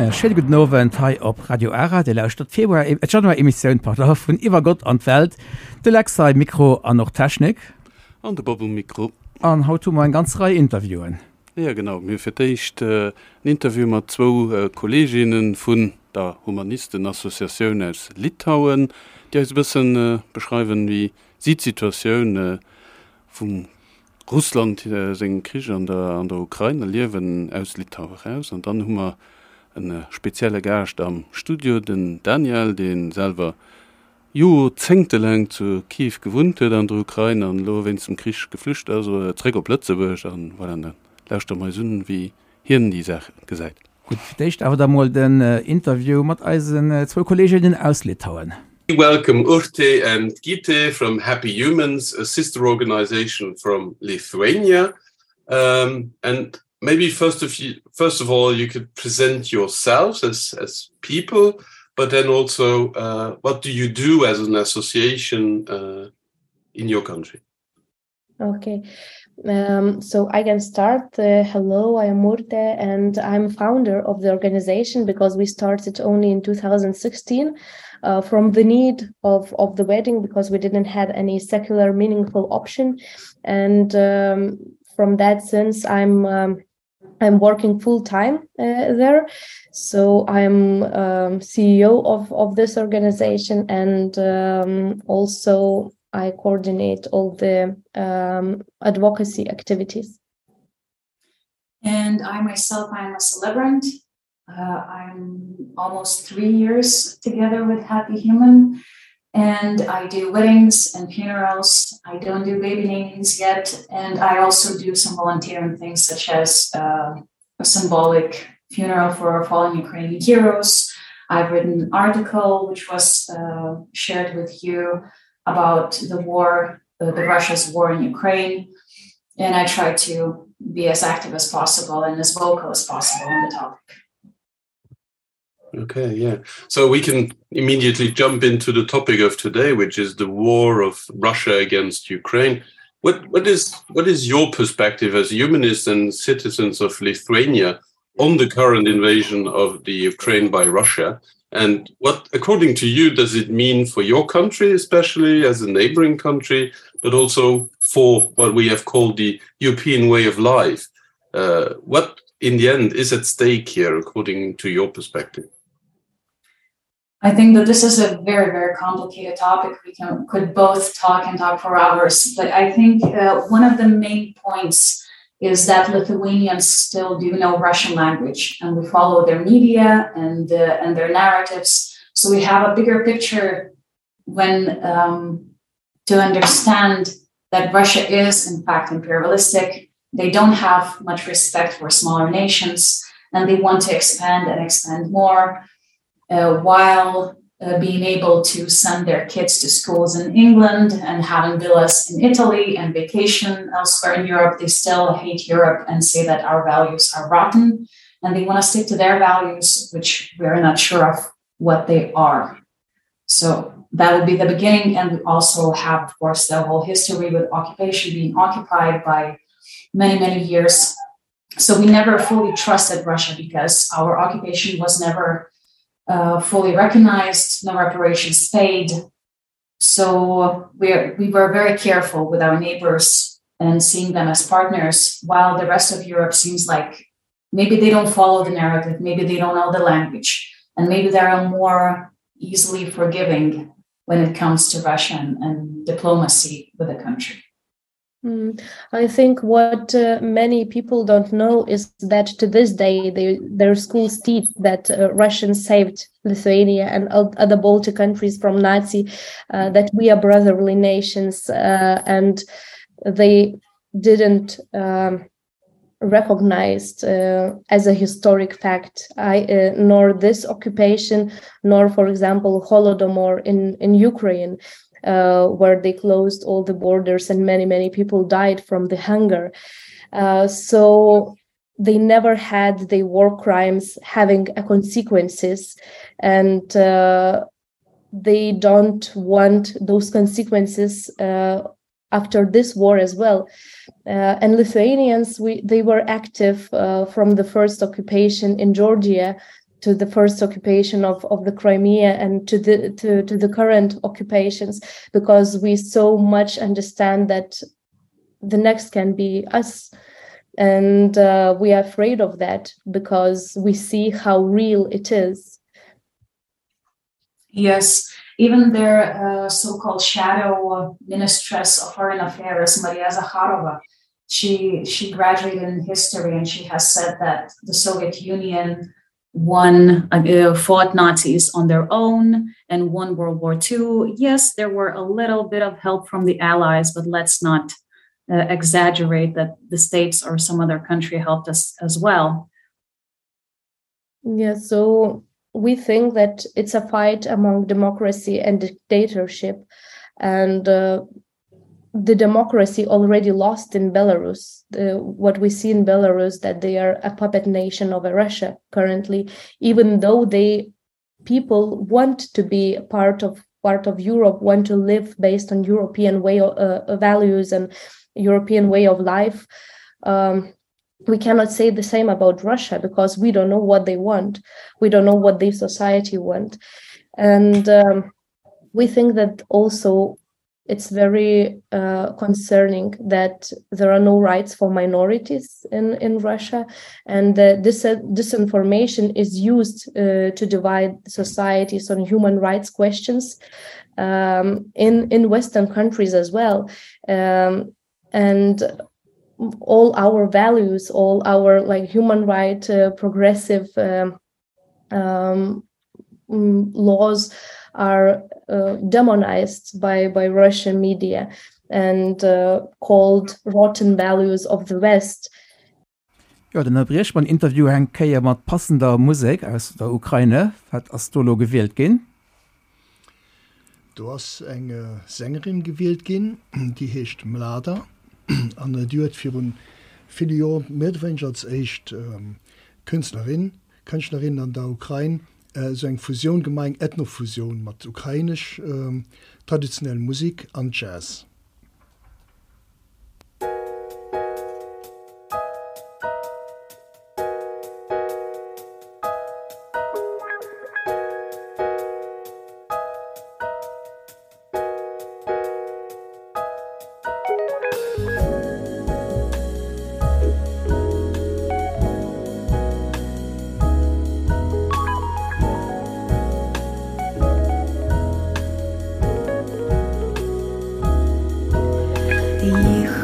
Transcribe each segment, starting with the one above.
E schéine gudden Owend hei op Radio Ara. Dir lauschtert d'Februar, äh, d'Januar-Emissioun, pardon, vun Iwwer Gott an d'Welt. De Lex hei, Mikro an och Technik. An de Bob um Mikro. An haut hu mer eng ganz Rei Interviewen. Jo, genau. Mir hu fir d'éischt en Interview mat zwou Kolleeginne vun der Humanisten-Associatioun aus Litauen, déi eis e bësse beschreiwen, wéi si d'Situatioun vum Russland sengem Krich an der an der Ukrain erliewen, aus Litauen eraus. An dann hu mer e spezielle Gaascht am Studio, den Daniel, dee selwer joerzéngtelaang zu Kiew gewunnt huet an der Ukrain an elo wéinst dem Krich geflücht ass zeréck op Lëtzebuerg. An voilà, da lauschtere mer eis un, wéi hien déi Saach gesäit. Gutt, fir d'éischt awer da mol den Interview mat eisen zwou Kolleeginnen aus Litauen. We welcome Urte and Gite from Happy Humans, a sister organization from Lithuania. Um, and maybe first of, you, first of all, you could present yourselves as, as people, but then also uh, what do you do as an association uh, in your country? Okay, um, so I can start. Uh, hello, I am Urte and I'm founder of the organization because we started only in 2016 uh, from the need of, of the wedding because we didn't have any secular meaningful option. And um, from that sense, I'm um, I'm working full time uh, there. So I'm um, CEO of, of this organization and um, also I coordinate all the um, advocacy activities. And I myself, I'm a celebrant. Uh, I'm almost three years together with Happy Human and I do weddings and funerals. I don't do baby namings yet. And I also do some volunteering things such as uh, a symbolic funeral for our fallen Ukrainian heroes. I've written an article which was uh, shared with you about the war, uh, the Russia's war in Ukraine. And I try to be as active as possible and as vocal as possible on the topic. Okay, yeah. So we can immediately jump into the topic of today, which is the war of Russia against Ukraine. What, what, is, what is your perspective as humanists and citizens of Lithuania on the current invasion of the Ukraine by Russia? And what, according to you, does it mean for your country, especially as a neighboring country, but also for what we have called the European way of life? Uh, what, in the end, is at stake here, according to your perspective? I think that this is a very, very complicated topic. We can, could both talk and talk for hours, but I think uh, one of the main points is that Lithuanians still do know Russian language and we follow their media and, uh, and their narratives. So we have a bigger picture when um, to understand that Russia is in fact imperialistic. They don't have much respect for smaller nations and they want to expand and expand more uh, while uh, being able to send their kids to schools in England and having villas in Italy and vacation elsewhere in Europe, they still hate Europe and say that our values are rotten and they want to stick to their values, which we're not sure of what they are. So that would be the beginning. And we also have, of course, the whole history with occupation being occupied by many, many years. So we never fully trusted Russia because our occupation was never uh, fully recognized, no reparations paid. So we, we were very careful with our neighbors and seeing them as partners, while the rest of Europe seems like maybe they don't follow the narrative, maybe they don't know the language, and maybe they're more easily forgiving when it comes to Russian and diplomacy with the country. Mm. I think what uh, many people don't know is that to this day, they, their schools teach that uh, Russians saved Lithuania and other Baltic countries from Nazi, uh, that we are brotherly nations, uh, and they didn't um, recognized uh, as a historic fact, I, uh, nor this occupation, nor, for example, Holodomor in, in Ukraine uh, where they closed all the borders and many, many people died from the hunger. Uh, so they never had the war crimes having a consequences and uh, they don't want those consequences uh, after this war as well. Uh, and Lithuanians, we, they were active uh, from the first occupation in Georgia. to the first occupation of, of the Crimea and to the to, to the current occupations because we so much understand that the next can be us and uh, we are afraid of that because we see how real it is yes even their uh, so-called shadow ministress of foreign affairs Maria Zakharova she she graduated in history and she has said that the Soviet Union won uh, fought Nazis on their own and won World War II yes there were a little bit of help from the allies but let's not uh, exaggerate that the states or some other country helped us as well yeah so we think that it's a fight among democracy and dictatorship and uh, the democracy already lost in Belarus the, what we see in Belarus that they are a puppet nation of Russia currently even though they people want to be part of part of Europe want to live based on European way of, uh, values and European way of life um, we cannot say the same about Russia because we don't know what they want we don't know what the society want and um, we think that also it's very uh, concerning that there are no rights for minorities in in Russia and uh, this uh, disinformation is used uh, to divide societies on human rights questions um, in in western countries as well um, and all our values all our like human right uh, progressive um, um, mm, laws are uh, demonized by by Russian media and uh, called rotten values of the West. Jo, dann ënnerbrieche mer den Interview eng Kéier mat passender Musek aus der Ukraine. Wat ass do elo gewielt ginn? Do ass eng Sängerin gewielt ginn, déi heescht Mlada an déi huet virun ville Joer méi oder wéineger als éischt Künstlerin, Kënschtlerin an der Ukrain esou eng Fusioun gemaach, eng Ethnofusioun mat ukrainesch traditionell Musik an Jazz.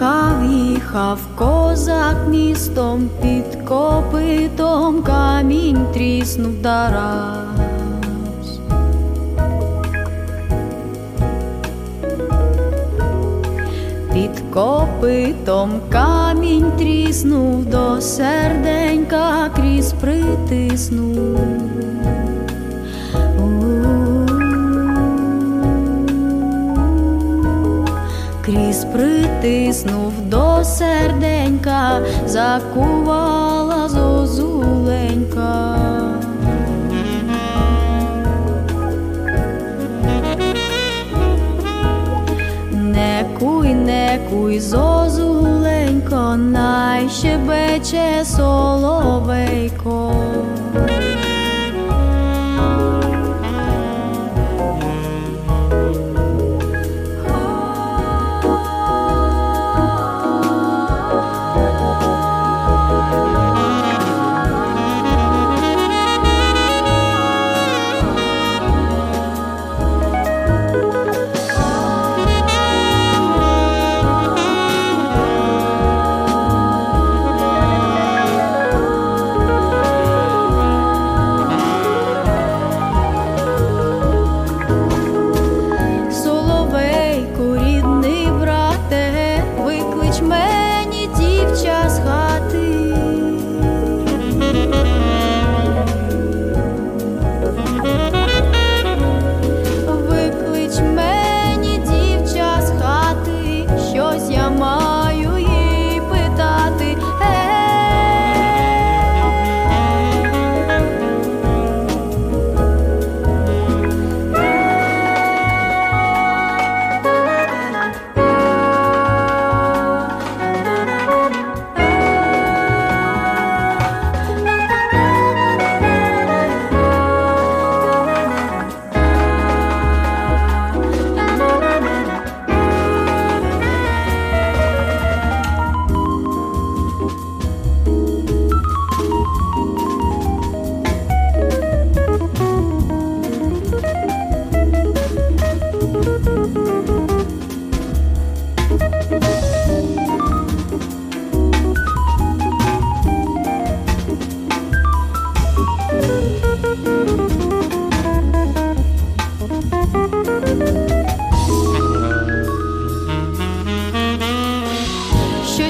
Їхав, їхав козак містом під копитом камінь тріснув дараз. Під копитом камінь тріснув до серденька крізь притиснув. Крізь притиснув до серденька, закувала зозуленька. Не куй, не куй, зозуленько, най щебече соловейко.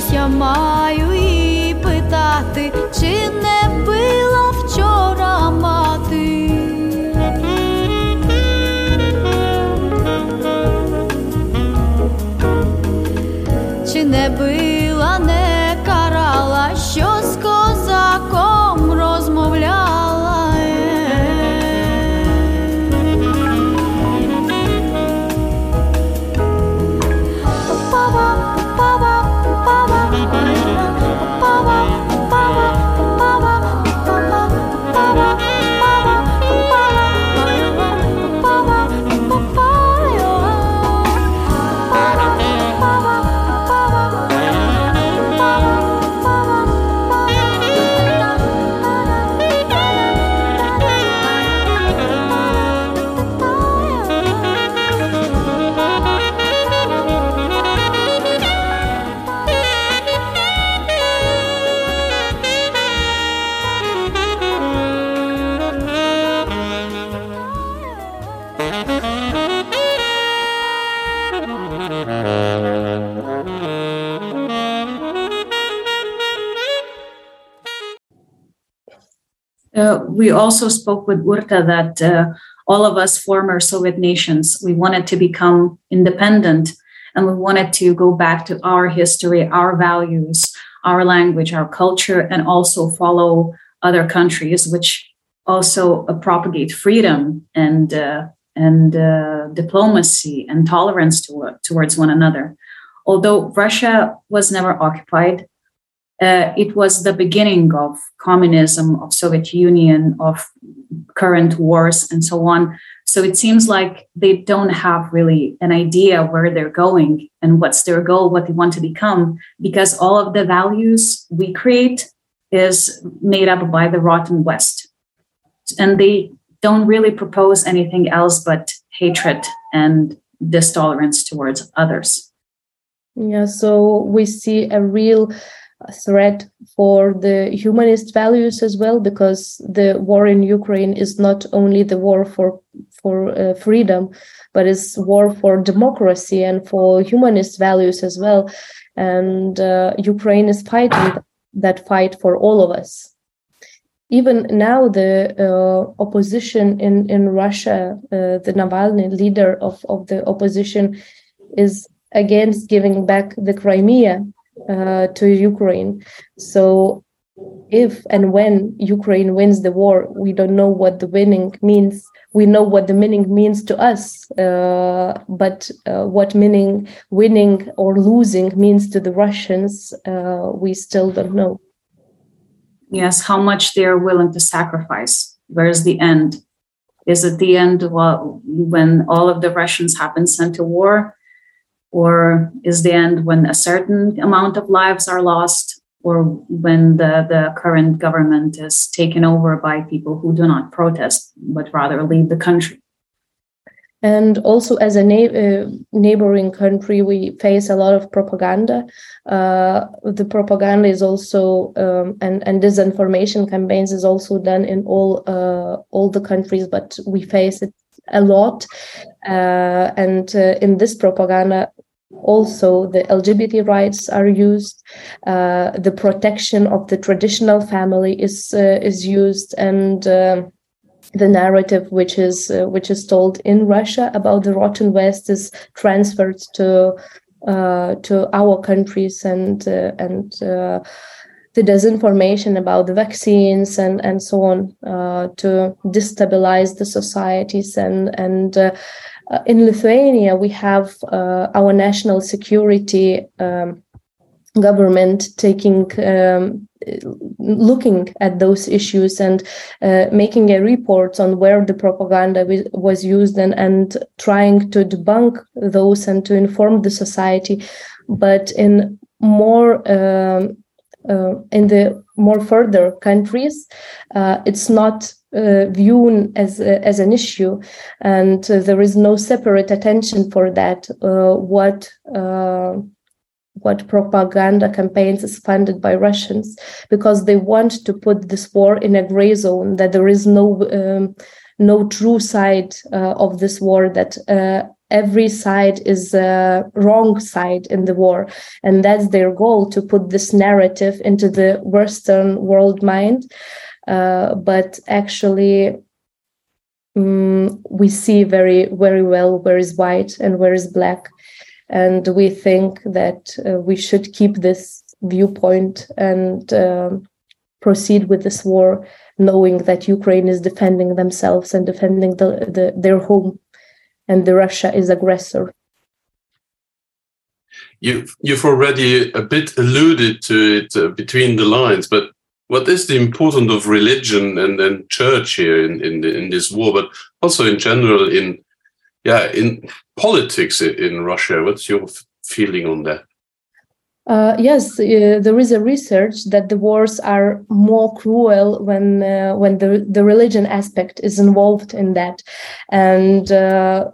Щось я маю її питати, чи не била вчора мати. Чи не била, не карала, що з козаком розмовляла. Uh, we also spoke with Urta that uh, all of us former Soviet nations, we wanted to become independent and we wanted to go back to our history, our values, our language, our culture, and also follow other countries, which also uh, propagate freedom and, uh, and uh, diplomacy and tolerance to, towards one another. Although Russia was never occupied, uh, it was the beginning of communism, of Soviet Union, of current wars and so on. So it seems like they don't have really an idea where they're going and what's their goal, what they want to become, because all of the values we create is made up by the rotten West. And they don't really propose anything else but hatred and distolerance towards others. Yeah, so we see a real threat for the humanist values as well because the war in Ukraine is not only the war for for uh, freedom but it's war for democracy and for humanist values as well and uh, Ukraine is fighting that fight for all of us even now the uh, opposition in in Russia uh, the Navalny leader of of the opposition is against giving back the Crimea uh, to Ukraine. So if and when Ukraine wins the war, we don't know what the winning means. We know what the meaning means to us, uh, but uh, what meaning winning or losing means to the Russians, uh, we still don't know. Yes, how much they are willing to sacrifice. Where's the end? Is it the end when all of the Russians have been sent to war? Or is the end when a certain amount of lives are lost or when the, the current government is taken over by people who do not protest, but rather leave the country? And also as a na uh, neighboring country, we face a lot of propaganda. Uh, the propaganda is also um, and, and disinformation campaigns is also done in all, uh, all the countries, but we face it a lot. Uh, and uh, in this propaganda, also the LGBT rights are used, uh, the protection of the traditional family is, uh, is used and uh, the narrative which is uh, which is told in Russia about the rotten West is transferred to uh, to our countries and uh, and uh, the disinformation about the vaccines and and so on uh, to destabilize the societies and and uh, uh, in Lithuania we have uh, our national security um, government taking um, looking at those issues and uh, making a report on where the propaganda was used and and trying to debunk those and to inform the society but in more um, uh, in the more further countries uh, it's not uh, viewed as uh, as an issue and uh, there is no separate attention for that uh, what uh, what propaganda campaigns is funded by Russians because they want to put this war in a gray zone that there is no um, no true side uh, of this war that uh, every side is a wrong side in the war. And that's their goal to put this narrative into the Western world mind. Uh, but actually, um, we see very, very well where is white and where is black. And we think that uh, we should keep this viewpoint and uh, proceed with this war, knowing that Ukraine is defending themselves and defending the, the, their home and the Russia is aggressor. You've, you've already a bit alluded to it uh, between the lines, but what is the importance of religion and then church here in, in, in this war, but also in general in yeah in politics in Russia? What's your feeling on that? Uh, yes, uh, there is a research that the wars are more cruel when uh, when the, the religion aspect is involved in that. And uh,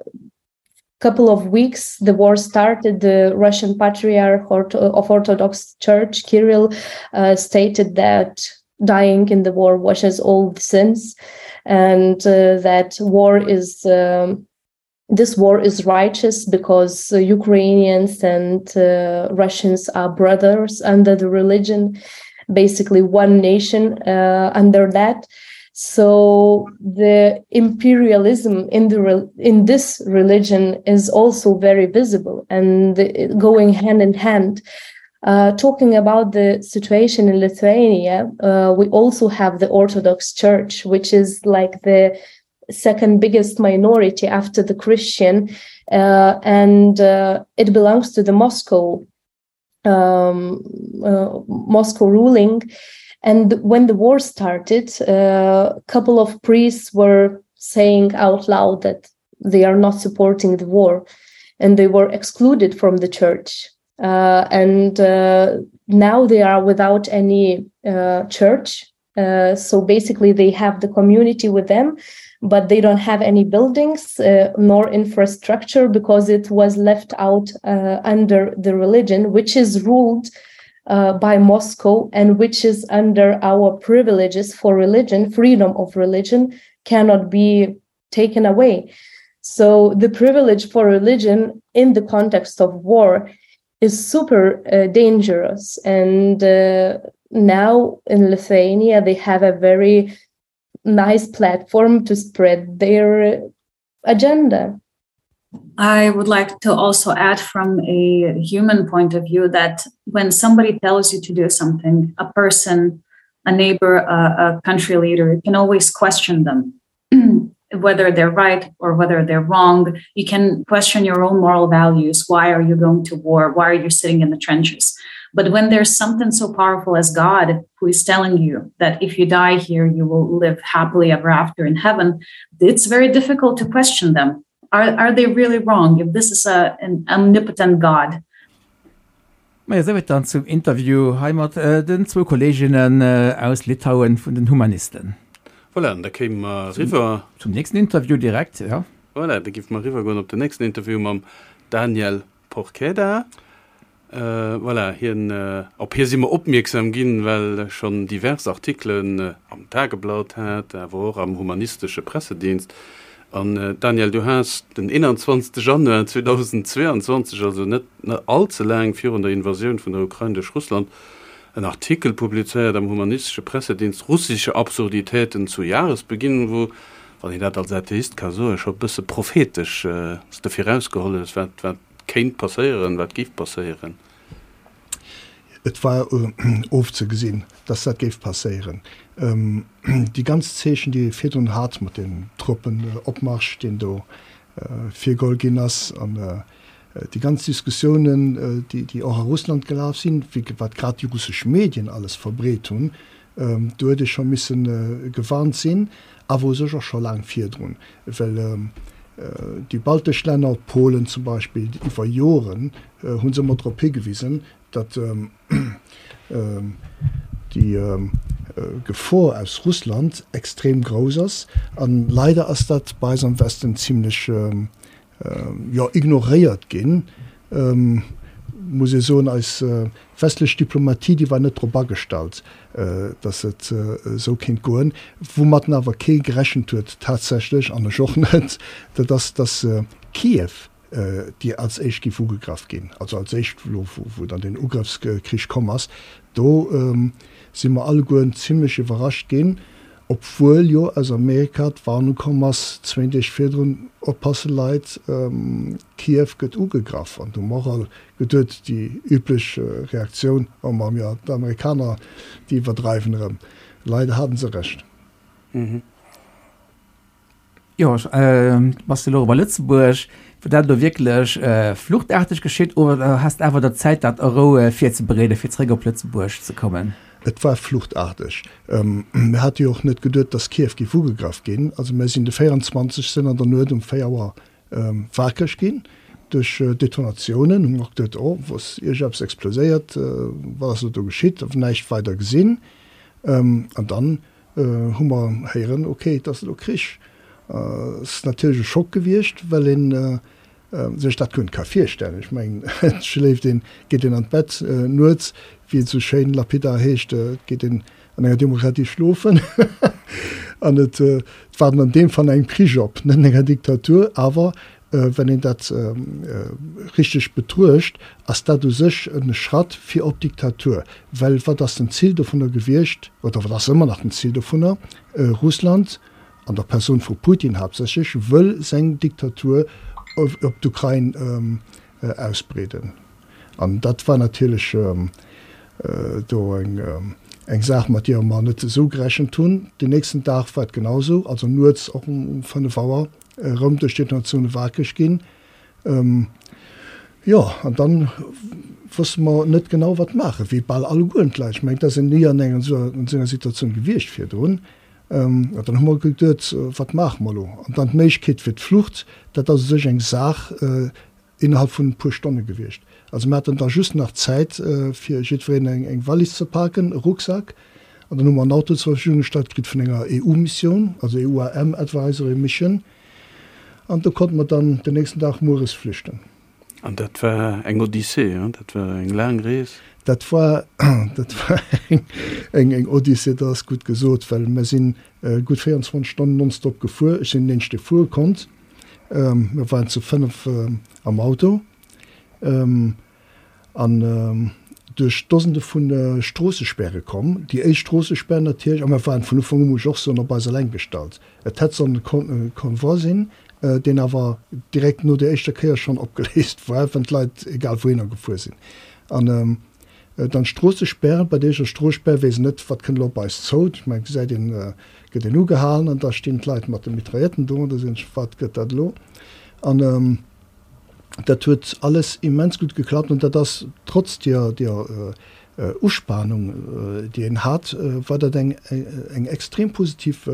couple of weeks the war started, the Russian Patriarch of Orthodox Church, Kirill, uh, stated that dying in the war washes all the sins and uh, that war is um, this war is righteous because uh, Ukrainians and uh, Russians are brothers under the religion, basically one nation uh, under that. So the imperialism in the in this religion is also very visible and going hand in hand. Uh, talking about the situation in Lithuania, uh, we also have the Orthodox Church, which is like the second biggest minority after the Christian, uh, and uh, it belongs to the Moscow um, uh, Moscow ruling. And when the war started, uh, a couple of priests were saying out loud that they are not supporting the war, and they were excluded from the church. Uh, and uh, now they are without any uh, church. Uh, so basically, they have the community with them, but they don't have any buildings uh, nor infrastructure because it was left out uh, under the religion, which is ruled uh, by Moscow and which is under our privileges for religion, freedom of religion cannot be taken away. So the privilege for religion in the context of war is super uh, dangerous. And uh, now in Lithuania, they have a very nice platform to spread their agenda. I would like to also add from a human point of view that when somebody tells you to do something, a person, a neighbor, a, a country leader, you can always question them. whether they're right or whether they're wrong. You can question your own moral values. Why are you going to war? Why are you sitting in the trenches? But when there's something so powerful as God who is telling you that if you die here, you will live happily ever after in heaven, it's very difficult to question them. Are, are they really wrong if this is a, an omnipotent God? Majo, souwäit dann zum Interview hei mat den zwou Kolleginnen aus Litauen vun den Humanisten. Voilà, an da kéime mer eriwwer. Zum nächsten Interview direkt, jo. Voilà, da géife mer eriwwer goen op den nächsten Interview mam Daniel Porchedda. Voilà, hien, op hie si mer opmierksam ginn, well e schonn divers Artikelen am Tageblatt hat, awer och am Humanistesche Pressedienst. An Daniel, du has den 21 Januar 2022, also net all ze laang virun der Invasioun vun der Ukrain duerch Russland, en Artikel publizéiert am Humanistesche Pressedienst Russische Absurditäten zu Jahresbeginn, wou, wann een dat als Atheist ka soen, scho e bësse prophetesch s de virausgeholl hues, wat, wat kéint passéieren, wat géif passéieren. Et war ofzegesinn, dass dat géif passéieren. Déi ganz Zeechen, déi ee virdrun hat mat deem Truppenopmarsch, deen do virgeholl ginn ass, an déi ganz Diskussiounen, déi och a Russland gelaf sinn, wat grad déi russesch Medien alles verbreet hunn, do huet ee scho misse gewarnt sinn, awer u sech och scho laang virdrun, well déi baltesch Länner, Polen zum Beispill, iwwer Joren hu se ëmmer drop higewisen, datt déi Gefor aus Russland extrem grouss ass. A leider ass dat bei eis am Westen zimlech, jo, ignoréiert ginn, muss ee soen. Eis westlech Diplomatie, déi war net drop agestallt, datt et esou kéint goen. Woumatten awer kee gerechent huet tatsächlech, an ech och net, dat ass, datt Kiew. déi als éischt géif ugegraff ginn, also als éischt elo wou dann deen Ugrëffskrich komm ass, do si mer allegueren zimlech iwwerrascht ginn, obwuel jo aus Amerika d'Warnung komm ass, zwéin Deeg virdrun, Oppasse Leit, Kiew gëtt ugegraff. An do hu mer och all geduet, déi üblech Reaktioun, Oh ma jo, d'Amerikaner, déi iwwerdreiwen erëm. Leider haten se Recht. Jo, bass de elo bei Lëtzebuerg, wor dat elo wierklech fluchtaarteg geschitt oder has de awer der Zäit dat a Rou virzebereeden, fir zeréck op Lëtzebuerg ze kommen? Et war fluchtaarteg. Mir hate jo och net geduet, datt Kiew géif ugegraff ginn. Also mir sinn de 24. an der Nuet um 4 Auer wakereg ginn duerch Detonatiounen. Hu mer och geduet, oh, wou ass iergendeppes exploséiert, wat ass elo do geschitt? Näischt weider gesinn. An dann hu mer héieren, ok, et ass elo Krich. Et ass natierlech e Schock gewiescht, well ee sech dat guer net ka virstellen. Ech mengen, et schléift een, geet een an d'Bett nuets, wéi et esou schéin lapidar heescht, et geet een an enger Demokratie schlofen an et waarden an deem Fall engem Krich op, net an enger Diktatur. Awer Wann een dat richteg betruecht, ass dat u sech e Schratt fir op d'Diktatur. Well wat ass den Zil dovunner gewiescht, oder wat ass ëmmer nach den Zil dovunner? Russland, an der Persoun vu Putin haaptsächlech, wëll seng Diktatur op d'Ukrain ausbreeden. An dat war natierlech do eng Saach, mat deeër mer net esou gerechent hunn. Den nächsten Dag war et genau esou, also nuets och um 5 Auer erëm duerch d'Detonatioune wakereg ginn. Jo, an dann wosste mer net genau, wat maachen, wéi bal allegueren d'Leit. Ech mengen, et ass een ni an enger esou enger Situatioun gewiescht virdrun. An dann hu mer geduet, wat maache mer elo? An dann d'Méiglechkeet fir d'Flucht, dat ass u sech eng Saach, innerhalb vun e puer Stonne gewiescht. Also mir haten da just nach Zäit fir jiddwereen eng Wallis ze paken, e Rucksak, an dann hu mer en Auto zur Verfügung gestallt kritt vun enger EU-Missioun, also EUAM Advisory Mission, an do konnte mer dann den nächsten Dag mueres flüchten. An dat war eng Odyssee, hein? Dat war eng laang Rees. Dat war, dat war eng, eng Odyssee, dat ass gutt gesot, well mir si gutt 24 Stonnen nonstop gefuer. Ech sinn den eenzegen, dee fuere konnt. Mir waren zu 5 am Auto an duerch Dosende vu Stroossespäre komm. Déi éischt Stroossespär natierlech, a mir waren vun Ufank u, muss ech och soen, op eis eleng gestallt. Et hätt sollen e Convoi sinn, deen awer direkt no der éischter Kéier schonn opgeléist war, well d'Leit egal wouhinner gefuer sinn. An dann d'Stroossespären, bei der éischter Stroossspär weess een net, wat kënnt elo op eis zou. Ech mengen, gesäit een, gëtt een ugehalen an da stinn d'Leit mat de Mitrailletten do an da soen ech, wat gëtt dat elo? An dat huet alles immens gutt geklappt an dat ass trotz deer, deer Uspanung, déi een hat, war dat eng, eng extrem positiv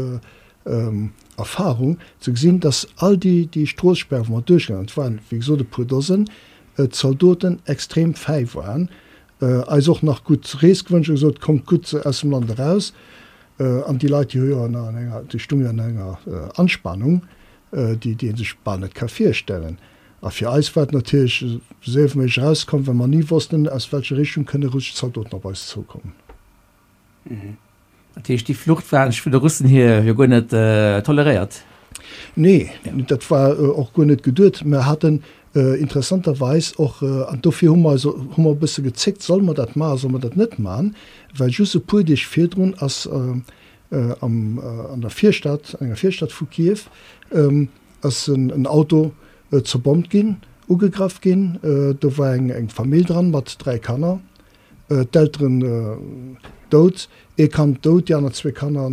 Erfahrung, ze gesinn, dass all déi, déi Stroossespär, wou mer duerchgaangen, et waren, wéi gesot, e puer Dosen, d'Zaldoten extrem fäi waren, eis och nach gutt Rees gewënscht a gesot, Kommt gutt aus dem Land eraus. An déi Leit, déi hu jo an enger, déi stunge an enger Anspanung, déi, déi ee sech bal net ka virstellen. A fir eis war et natierlech, esou séier wéi méiglech erauszekommen, well mer ni wossten, aus welcher Richtung kënne russesch Zaldoten op eis zoukommen. Dat heescht, déi Flucht war vun de Russen hier jo guer net toleréiert? Nee, dat war och guer net geduet. Mer haten interessanterweis och, an dofir hu mer eis, hu mer e bësse gezéckt, solle mer dat maachen, solle mer dat net maachen, well just e puer Deeg virdrun ass am, an der Virstad, an enger Virstad vu Kiew, ass en Auto zerbommt ginn, ugegraff ginn. Do war eng Famill dran mat 3 Kanner. D'Elteren dout, ee Kand dout, déi aner zwee Kanner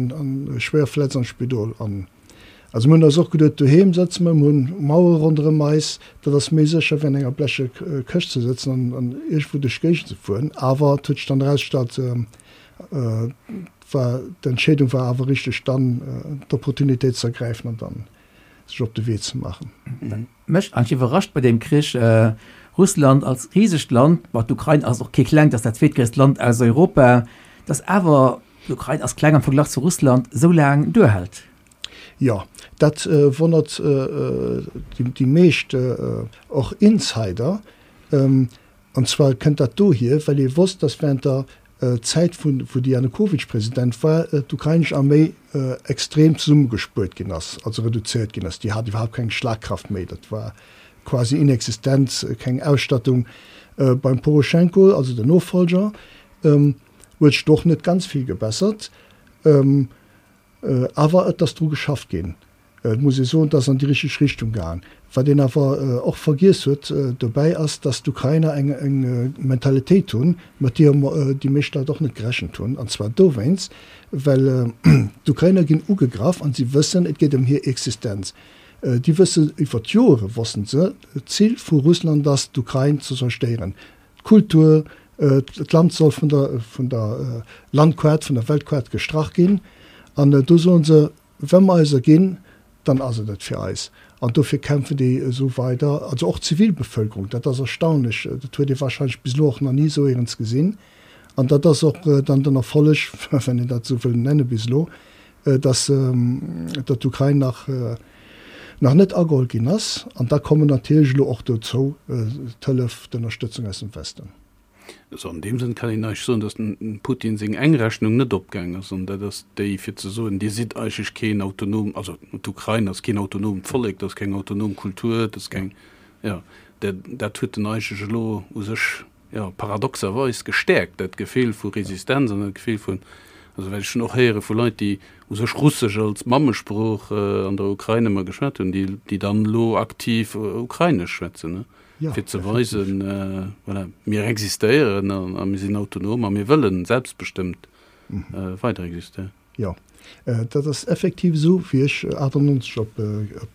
schwéier verletzt an d'Spidol. An also mir hunn eis och geduet, doheem sëtze mer, mir hunn Mauere ronderëm eis, dat ass méi sécher wéi an enger bleche Këscht ze sëtzen an iergendwou duerch d'Géigend ze fueren. Awer et huet sech dann erausgestallt, war d'Entscheedung war awer richteg, dann d'Opportunitéit ze ergräifen an dann sech op de Wee ze maachen. Mech eigentlech iwwerrascht bei deem Krich, Russland als risegt Land, bon d'Ukrain ass och kee klengt, ass dat zweetgréisst Land aus Europa, datt awer, d'Ukrain ass kleng am Verglach zu Russland, esou laang duerhält. Jo, dat wonnert déi meescht, och Insider. An zwar kënnt dat dohier, well ee wosst, datt während der Zäit vu wou de Janukowytsch President war, d'ukrainesch Arméi extrem zesummegespuert ginn ass, also reduzéiert ginn ass. Déi hat iwwerhaapt keng Schlagkraft méi. Dat war. quasi inexistent, keng Ausstattung. Beim Poroschenko, also den Nofolger, huet sech do och net ganz vill gebessert, awer et ass dru geschafft ginn. Et muss ee soen, et ass an déi richteg Richtung gaang. Wat een awer och vergiess huet dobäi ass, datt d'Ukrainer eng Mentalitéit hunn, mat deeër déi meescht Leit och net gerechent hunn. An zwar dowéinst, well d'Ukrainer ginn ugegraff an si wëssen, et geet ëm hir Existenz. Déi wëssen, iwwer d'Joere wossten se, d'Zil vu Russland ass, d'Ukrain ze zerstéieren. D'Kultur, d'Land soll vun der vun der Landkaart, vun der Weltkaart gestrach ginn. An do soen se, Wa mer eis erginn, dann ass et et fir eis. An dofir kämpfen déi esou weider, also och d'Zivilbevölkerung. Dat ass erstaunlech, dat huet ee wahrscheinlech bis elo och nach ni esou éierens gesinn. An dat ass och dann den Erfolleg, wann een dat esou wëll nennen, bis elo, dass datt d'Ukrain nach nach net ageholl ginn ass. An da kommen natierlech elo och dozou d'Hëllef, d'Ënnerstëtzung aus dem Westen. Also an deem Sënn kann een eigentlech soen, datt dem Putin seng eng Rechnung net opgaang ass, an dat ass déi fir ze soen, Dir sidd eigentlech keen autonom, also d'Ukrain ass keen autonomt Vollek, dat ass keng autonom Kultur, dat ass keng, jo, dat dat huet en eigentlech elo u sech, jo, paradoxerweis gestäerkt, dat Gefill vu Resistenz an dat Gefill vun, also well ech hunn och héiere vu Leit, déi u sech Russesch als Mammesprooch an der Ukrain ëmmer geschwat hunn, déi déi dann elo aktiv Ukrainesch schwätzen. fir ze weisen, voilà, mir existéieren a mir sinn autonom a mir wëllen selbstbestëmmt weider existéieren. Jo, dat ass effektiv esou. Wéi ech 98 op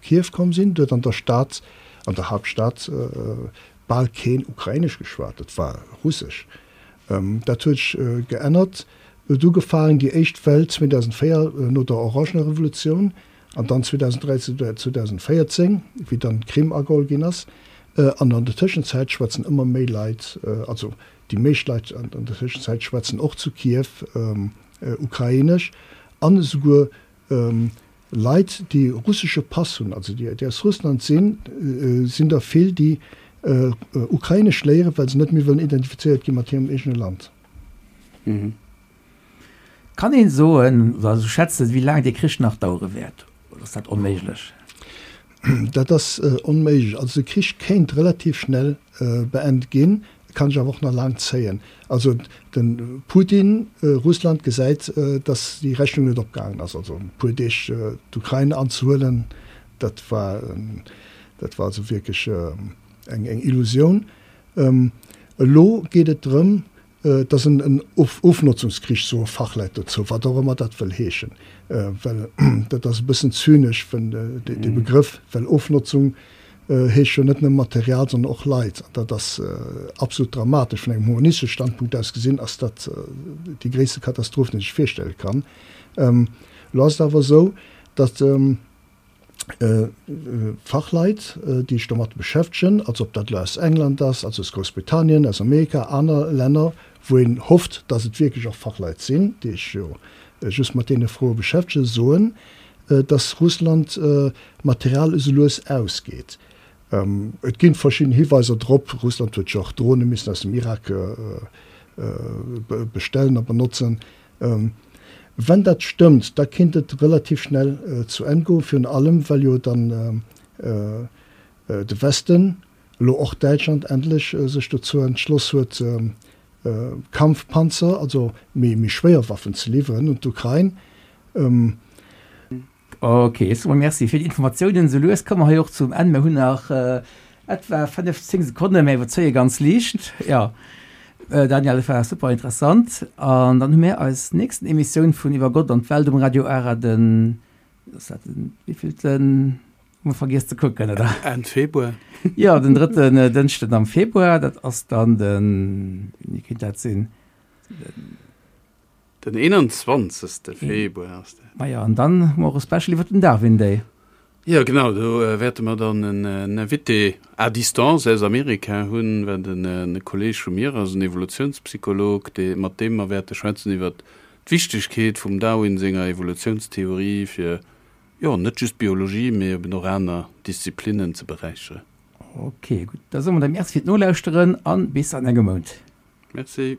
Kiew komm sinn, do huet an der Stad, an der Haaptstad, bal keen Ukrainesch geschwat, et war Russesch. Dat huet sech geännert. Et huet ugefaangen, déi éischt Well 2004 no der Orangener Revolutioun, An dann 2013 oder 2014, wéi dann d'Krim ageholl ginn ass. An an der Tëschenzäit schwätzen ëmmer méi Leit, also déi meescht Leit an der Tëschenzäit schwätzen och zu Kiew Ukrainesch an esouguer Leit, déi russesche Pass hunn, also déi aus Russland sinn, sinn der vill, déi Ukrainesch léieren, well se net méi wëllen identifizéiert gi mat hirem eegene Land. Kann een soen oder esou schätzen, wéi laang dee Krich nach dauere wäert, oder ass dat onméiglech? Dat ass onméiglech. Also de Krich kéint relativ schnell beent ginn, kann sech awer och nach laang zéien. Also de Putin, Russland gesäit, datt déi Rechnung net opgaangen ass. Also e puer Deeg d'Ukrain anzehuelen, dat war, dat war also wierklech eng Illusioun. Elo geet et drëm, Et ass en Ofnotzungskrich, soe Fachleit dozou, wat och ëmmer dat wëll heeschen. Well dat ass e bëssen zynesch, dee Begrëff, well Ofnotzung heescht jo net nëmme Material, sondern och Leit. An dat ass absolut dramatesch. Vun engem humanistesche Standpunkt aus gesinn ass dat déi gréisste Katastroph, déi een sech virstelle kann. Elo ass et awer esou, datt Fachleit, déi sech domat beschäftegen, also ob dat elo aus England ass, also aus Groussbritannien, aus Amerika, aner Länner, wou een hofft, datt et wierklech och Fachleit sinn, déi sech jo just mat deene Froe beschäftegen, soen, datt Russland Material esou lues ausgeet. Et ginn verschidden Hiweiser drop, Russland huet jo och Drone missen aus dem Irak bestellen a benotzen. Wenn dat stëmmt, da kinnt et relativ schnell zu Enn goen, virun allem well jo dann de Westen, elo och Däitschland, endlech sech dozou entschloss huet, Kampfpanzer, also méi schwéier Waffen ze liwweren un d'Ukrain. Ok, super, Merci fir déi Informatiounen. Sou lues komme mer hei och zum Enn. Mir hunn nach etwa 5, 10 Sekonnen, mä iwwerzéie ganz liicht. Jo, Daniel, et war super interessant. An dann hu mir eis nächsten Emissioun vun Iwwer Gott an d'Welt um Radio Ara den, ass dat den wéivillten? Hu mer vergiess ze kucken, oder? Enn Februar. Jo, den drëtten Dënschden am Februar. Dat ass dann den, wéini kéint dat sinn? Den. Den 21. Februar ass dat. Majo, an dann hu mer och e Special iwwer den Darwin Day. Jo, genau, do wäerte mer dann en Invité à distance aus Amerika hunn, wat en Kolleeg vu mir ass, en Evolutionspsycholog, dee, mat deem mer wäerte schwätzen iwwer d'Wichtegkeet vum Darwin senger Evolutionstheorie fir, jo, net just d'Biologie, mee eben och aner Disziplinnen ze beräicheren. Ok, gutt, da soe mer da Merci fir d'Nolauschteren a bis an engem Mount. Merci.